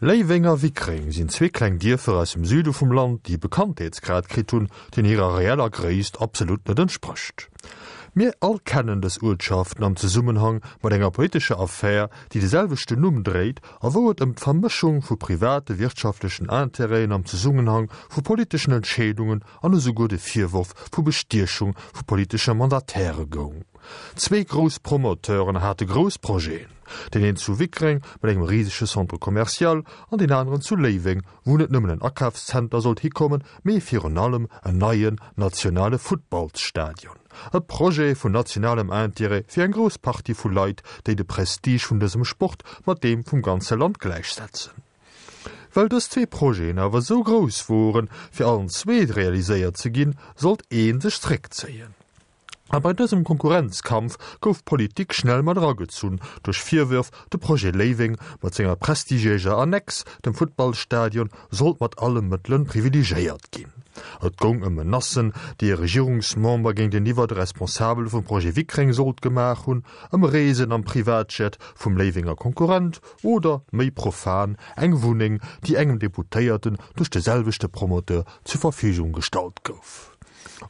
Léiweng a Wickreng sinn zwee kleng Dierfer aus dem Süde vum Land, déi e Bekanntheetsgrad kritt hunn, deen hirer reeller Gréisst absolut net entsprécht. Mir all kennen dës Uertschaften am Zesummenhang mat enger politescher Affär, déi de selwechten Numm dréit a wou et ëm d'Vermëschung vu private wirtschaftlechen Intérêten am Zesummenhang vu politeschen Entscheedungen an esouguer de Virworf vu Bestiechung vu politesche Mandataire goung. Zwee grouss Promoteuren hate grouss Projeten, deen een zu Wickreng mat engem risege Centre commercial an deen aneren zu Léiweng, wou net nëmmen en Akafszenter sollt hikommen, mee virun allem en neien nationale Futtballsstadion. E Projet vun nationalem Intérêt fir eng grouss Partie vu Leit, déi de Prestige vun dësem Sport mat deem vum ganze Land gläichsetzen. Well dës zwee Projeten awer esou grouss woren, fir allen zwee realiséiert ze ginn, sollt ee sech zréckzéien. A bei dësem Konkurrenzkampf gouf d'Politik schnell mat eragezunn, duerch Virwërf, de Projet Léiweng mat senger prestigiéiser Annex, dem Futtballstadion, sollt mat alle Mëttele privilegéiert ginn. Et goung ëm Menacen, déi e Regierungsmember géinteniwwer de Responsabele vum Projet Wickreng sollt gemaach hunn, ëm Reesen am Privatjet vum Léiwenger Konkurrent oder, méi profan, eng Wunneng, déi engem Deputéierten duerch de selwechte Promoteur zur Verfügung gestallt gouf.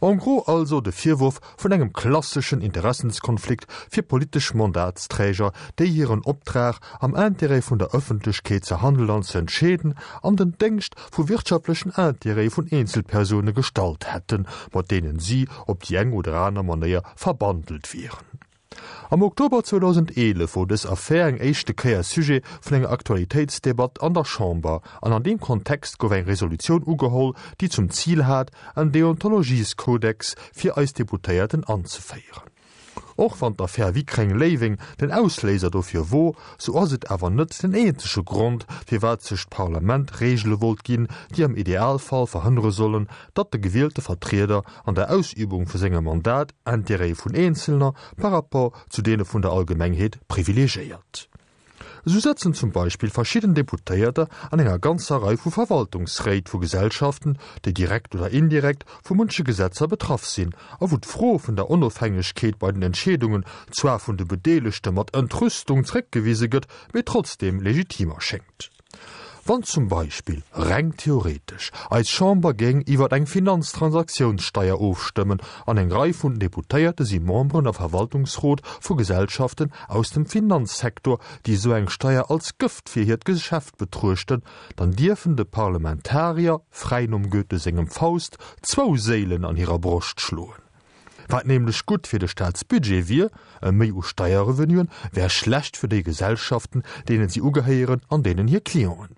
En gros also de Virwurf vun engem klasseschen Interessenskonflikt fir politesch Mandatsträger, déi hiren Optrag, am Intérêt vun der Ëffentlechkeet ze handelen an ze entscheeden, an den Déngscht vu wirtschaftlechen Intérêtë vun Eenzelpersoune gestallt hätten, mat deenen si op déi eng oder aner Manéier verbandelt wieren. Am Oktober 2011 wor dës Affär eng éischte Kéier Sujet vun enger Aktualitéitsdebatt an der Chamber an an deem Kontext gouf eng Resolutioun ugeholl, déi zum Zil hat, en Deontologieskodex fir eis Deputéierten anzeféieren. Och wann d'Affär Wickreng-Léiweng den Ausléiser dofir wor, sou ass et awer net den eenzege Grond, firwat sech d'Parlament Reegele wollt ginn, déi am Idealfall verhënnere sollen, datt de gewielte Vertrieder an der Ausübung vu sengem Mandat Intérêtë vun Eenzelner par rapport zu deene vun der Allgemengheet privilegiéiert. Esou sëtzen zum Beispill verschidden Deputéierter an enger ganzer Rei vu Verwaltungsréit vu Gesellschaften, déi direkt oder indirekt vu munche Gesetzer betraff sinn a wou d'Fro vun der Onofhängegkeet bei den Entscheedungen zwar vun de Bedeelegte mat Entrüstung zréckgewise gëtt, mee trotzdeem legitim erschéngt. Wann zum Beispill, reng theoretesch, eis Chamber géing iwwer eng Finanztransaktiounssteier ofstëmmen an eng Rei vun Deputéierte si Memberen a Verwaltungsrot vu Gesellschaften aus dem Finanzsektor, déi esou eng Steier als Gëft fir hiert Geschäft betruechten, dann dierfen de Parlamentarier, fräi nom Goethe sengem Faust, zwou Séilen an hirer Broscht schloen. Wat nämlech gutt fir de Staatsbudget wier, e Méi u Steierrevenuen, wär schlecht fir déi Gesellschaften, deenen si ugehéieren an deenen hir Clienten.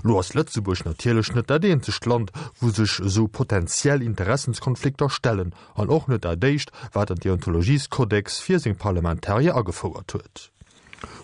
Lo ass Lëtzebuerg natierlech net dat eenzegt Land, wou sech esou potentiell Interessenskonflikter stellen, an och net dat éischt, wat en Deontologieskodex fir seng Parlamentarier agefouert huet.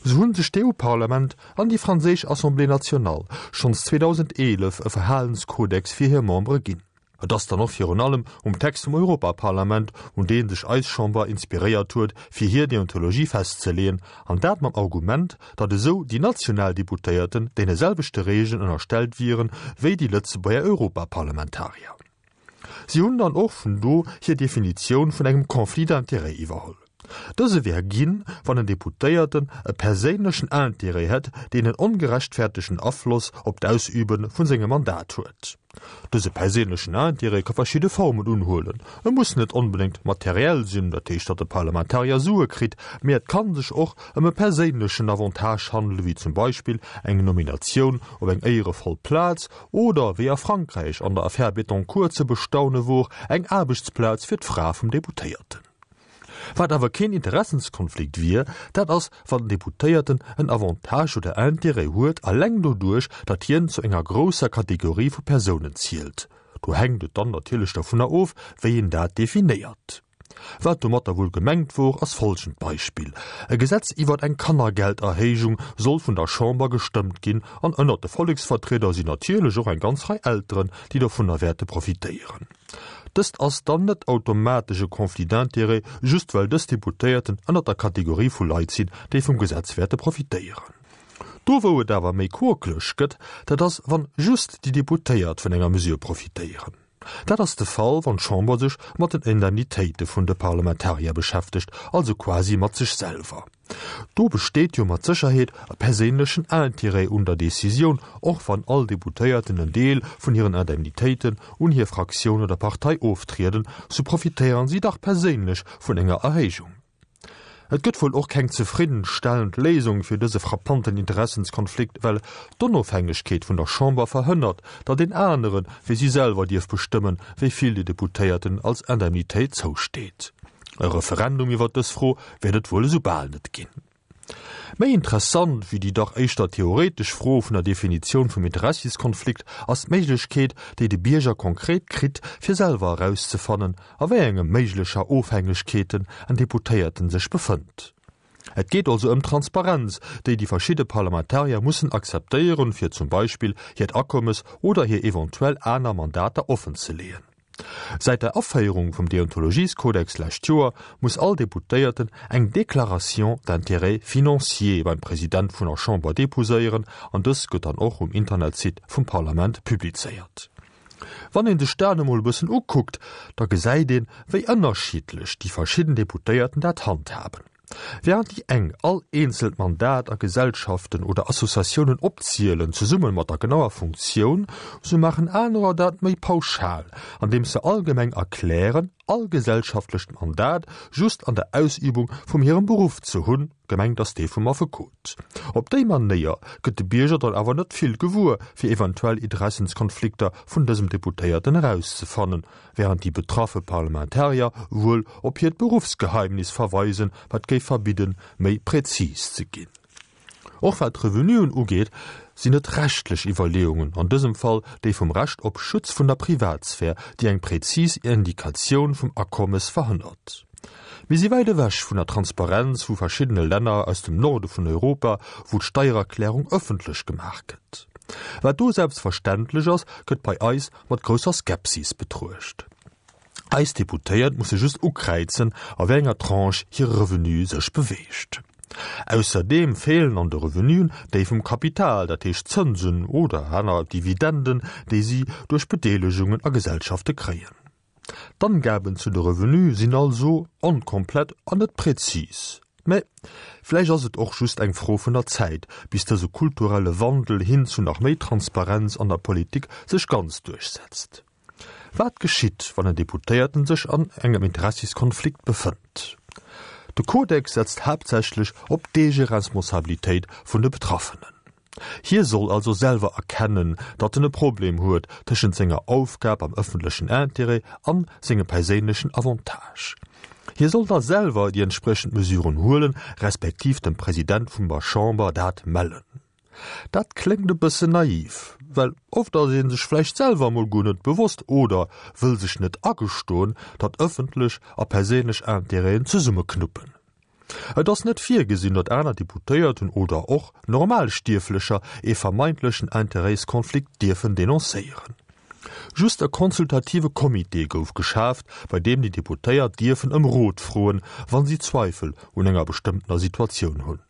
Sou hunn sech d'EU-Parlament an déi franséisch Assemblée nationale schonns 2011 e Verhalenskodex fir hir Membere ginn. Et ass dann och virun allem um Text vum Europaparlament, un dee sech eis Chamber inspiréiert huet, fir hir Deontologie festzeleeën, an dat mam Argument, datt esou déi national Deputéierten deene selwechte Regeln ënnerstellt wieren, wéi déi Lëtzebuerger Europaparlamentarier. Si hunn dann och vun do hir Definitioun vun engem Conflit d'intérêts iwwerholl. Dëse wär ginn, wann en Deputéierten e perséinlechen Intérêt hätt, deen en ongerechtfertegten Afloss op d'Ausübe vun sengem Mandat huet. Dëse perséinlechen Intérêt ka verschidde Formen unhuelen. E muss net onbedéngt materiell sinn, dat heescht, datt e Parlamentarier Sue kritt, mee et ka sech och ëm e perséinlechen Avantage handelen, wéi zum Beispill eng Nominatioun op eng éierevoll Plaz oder, wéi a Frankräich an der Affär Bettencourt ze bestaune wor, eng Aarbechtsplaz fir d'Fra vum Deputéierten. Wat awer keen Interessenskonflikt wier, dat ass, wann den Deputéierten en Avantage oder Intérêt huet, alleng doduerch, datt hien zu enger grousser Kategorie vu Persounen zielt. Do hänkt et dann natierlech dovunner of, wéi een dat definéiert. Wat domatter wuel gemengt wor, ass folgend Beispill, E Gesetz iwwert eng Kannergelderhéijung soll vun der Chamber gestëmmt ginn, an ënnert de Volleksvertrieder sinn natierlech och eng ganz Rei Elteren, déi dovunner wäerte profitéieren. Dëst ass dann net automatesch e Conflit d'intérêts, just well dës Deputéierten ënnert der Kategorie vu Leit sinn, déi vum Gesetz wäerte profitéieren. Do wou et awer méi quokeleg gëtt, dat ass wann just déi Deputéiert vun enger Mesure profitéieren. Dat ass de Fall, wann d'Chamber sech mat den Indemnitéite vun de Parlamentarier beschäftegt, also quasi mat sech selwer. Do besteet jo mat Sécherheet e perséinlechen Intérêt un der Decisioun, och wann all Deputéierten en Deel vun hiren Indemnitéiten un hir Fraktioun oder Partei oftrieden, sou profitéieren si dach perséinlech vun enger Erhéijung. Et gëtt wuel och keng zefriddenstellend Léisung fir dëse frappanten Interessenskonflikt, well d'Onofhängegkeet vun der Chamber verhënnert, datt een anere wéi si selwer dierf bestëmmen, wéi vill de Deputéierten als Indemnitéit zousteet. E Referendum iwwer dës Fro wäert et wuel esou bal net ginn. Méi interessant wéi déi dach éischter theoretesch Fro vun der Definitioun vum Interessiskonflikt ass d'Méiglechkeet, déi de Bierger konkret kritt, fir selwer erauszefannen, a wéi enge méiglecher Ofhängegkeeten en Deputéierten sech befënnt. Et geet also ëm d'Transparenz, déi déi verschidde Parlamentarier mussen akzeptéieren, fir zum Beispill hiert Akommes oder hir eventuell aner Mandater offenzeleeën. Säit der Aféierung vum Deontologieskodex lescht Joer muss all Deputéierten eng Déclaration d'intérêts financiers beim President vun der Chamber deposéieren an dës gëtt dann och um Internetsite vum Parlament publizéiert. Wann een sech dat emol e bëssen ukuckt, da gesäit een, wéi ënnerschiddlech déi verschidden Deputéierten dat handhaben. Während déi eng all eenzelt Mandat a Gesellschaften oder Associatiounen opzielen, zesumme mat der genauer Funktioun, sou maachen anerer dat méi pauschal, andeems se allgemeng erklären, all gesellschaftlecht Mandat just an der Ausübung vum hirem Beruff ze hunn, gemengt ass dee vum Affekot. Op déi Manéier gëtt de Bierger dann awer net vill gewuer, fir eventuell Interessenskonflikter vun dësem Deputéierten erauszefannen, während déi betraffe Parlamentarier wuel op hiert Beruffsgeheimnis verweisen, wat géif verbidden, méi präzis ze ginn. Och wat d'Revenuen ugeet, sinn et rechtlech Iwwerleeungen, an dësem Fall déi vum Recht op Schutz vun der Privatsphär, déi eng präzis Indikatioun vum Akommes verhënnert. Mir si wäit ewech vun der Transparenz vu verschiddene Länner aus dem Norde vun Europa, wou d'Steiererklärung ëffentlech gemaach gëtt. Wat do selbstverständlech ass, gëtt bei eis mat grousser Skepsis betruecht. Eis Deputéiert musse just ukräizen, a wéi enger Tranche hire Revenu sech beweegt. Ausserdeem feelen an de Revenuen déi vum Kapital, dat heescht Zënsen oder aner Dividenden, déi si duerch Bedeelegungen a Gesellschafte kréien. D'Angaben zu de Revenue sinn also onkomplett an net präzis. Mä vläicht ass et och just eng Fro vun der Zäit, bis dëse kulturelle Wandel hin zu nach méi Transparenz an der Politik sech ganz duerchsetzt. Wat geschitt, wann en Deputéierten sech an engem Interessiskonflikt befënnt? De Kodex setzt haaptsächlech op d'Eegeresponsabilitéit vun de Betraffenen. Hie soll also selwer erkennen, datt en e Problem huet tëschent senger Aufgab am ëffentlechen Intérêt an sengem perséinlechen Avantage. Hie soll da selwer déi entspriechend Mesuren huelen, respektiv dem President vum der Chamber dat mellen. Dat kléngt e bëssen naiv, well oft ass ee sech vläicht selwer emol guer net bewosst oder wëll sech net agestoen, datt ëffentlech a perséinlech Intérêten zesummeknuppen. Et ass net virgesinn, datt aner Deputéierten oder och normal Stierflecher ee vermeintlechen Interêtskonflikt dierfen denoncéieren. Just e consultative Comité gouf geschaaft, bei deem déi Deputéiert dierfen ëm Rot froen, wann si Zweifel un enger bestëmmtener Situatioun hunn.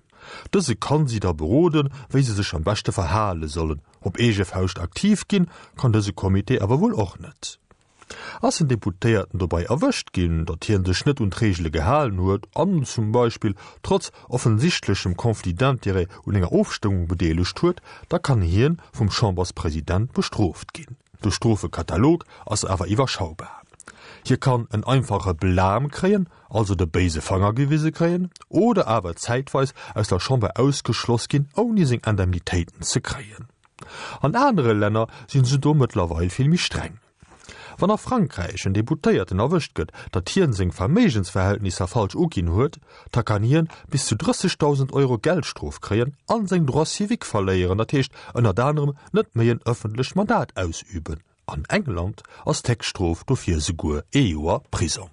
Dëse kann si da beroden, wéi se sech am beschte verhale sollen. Op eege Fauscht aktiv ginn, kann dëse Comité awer wuel och net. Ass en Deputéierten dobei erwëscht ginn, datt hien sech net un d'Reegele gehalen huet an zum Beispill trotz offensichtlechem Conflit d'intérêts un enger Ofstëmmung bedeelegt huet, da kann hien vum Chamberspresident bestrooft ginn. De Strofekatalog ass awer iwwerschaubar. Hie kann en einfache Blâme kréien, also de béise Fanger gewise kréien, oder awer zäitweis aus der Chamber ausgeschloss ginn, ouni seng Indemnitéiten ze kréien. An anere Länner sinn se do mëttlerweil vill méi streng. Wann a Frankräich en Deputéierten erwëscht gëtt, datt hien seng Verméigensverhältnisser falsch uginn huet, da kann hien bis zu 30.000 Euro Geldstrof kréien an seng Droits civiques verléieren, dat heescht ënnert anerem net méi en ëffentlecht Mandat ausüben. An England ass d'Héchststrof dofir esouguer ee Joer Prisong.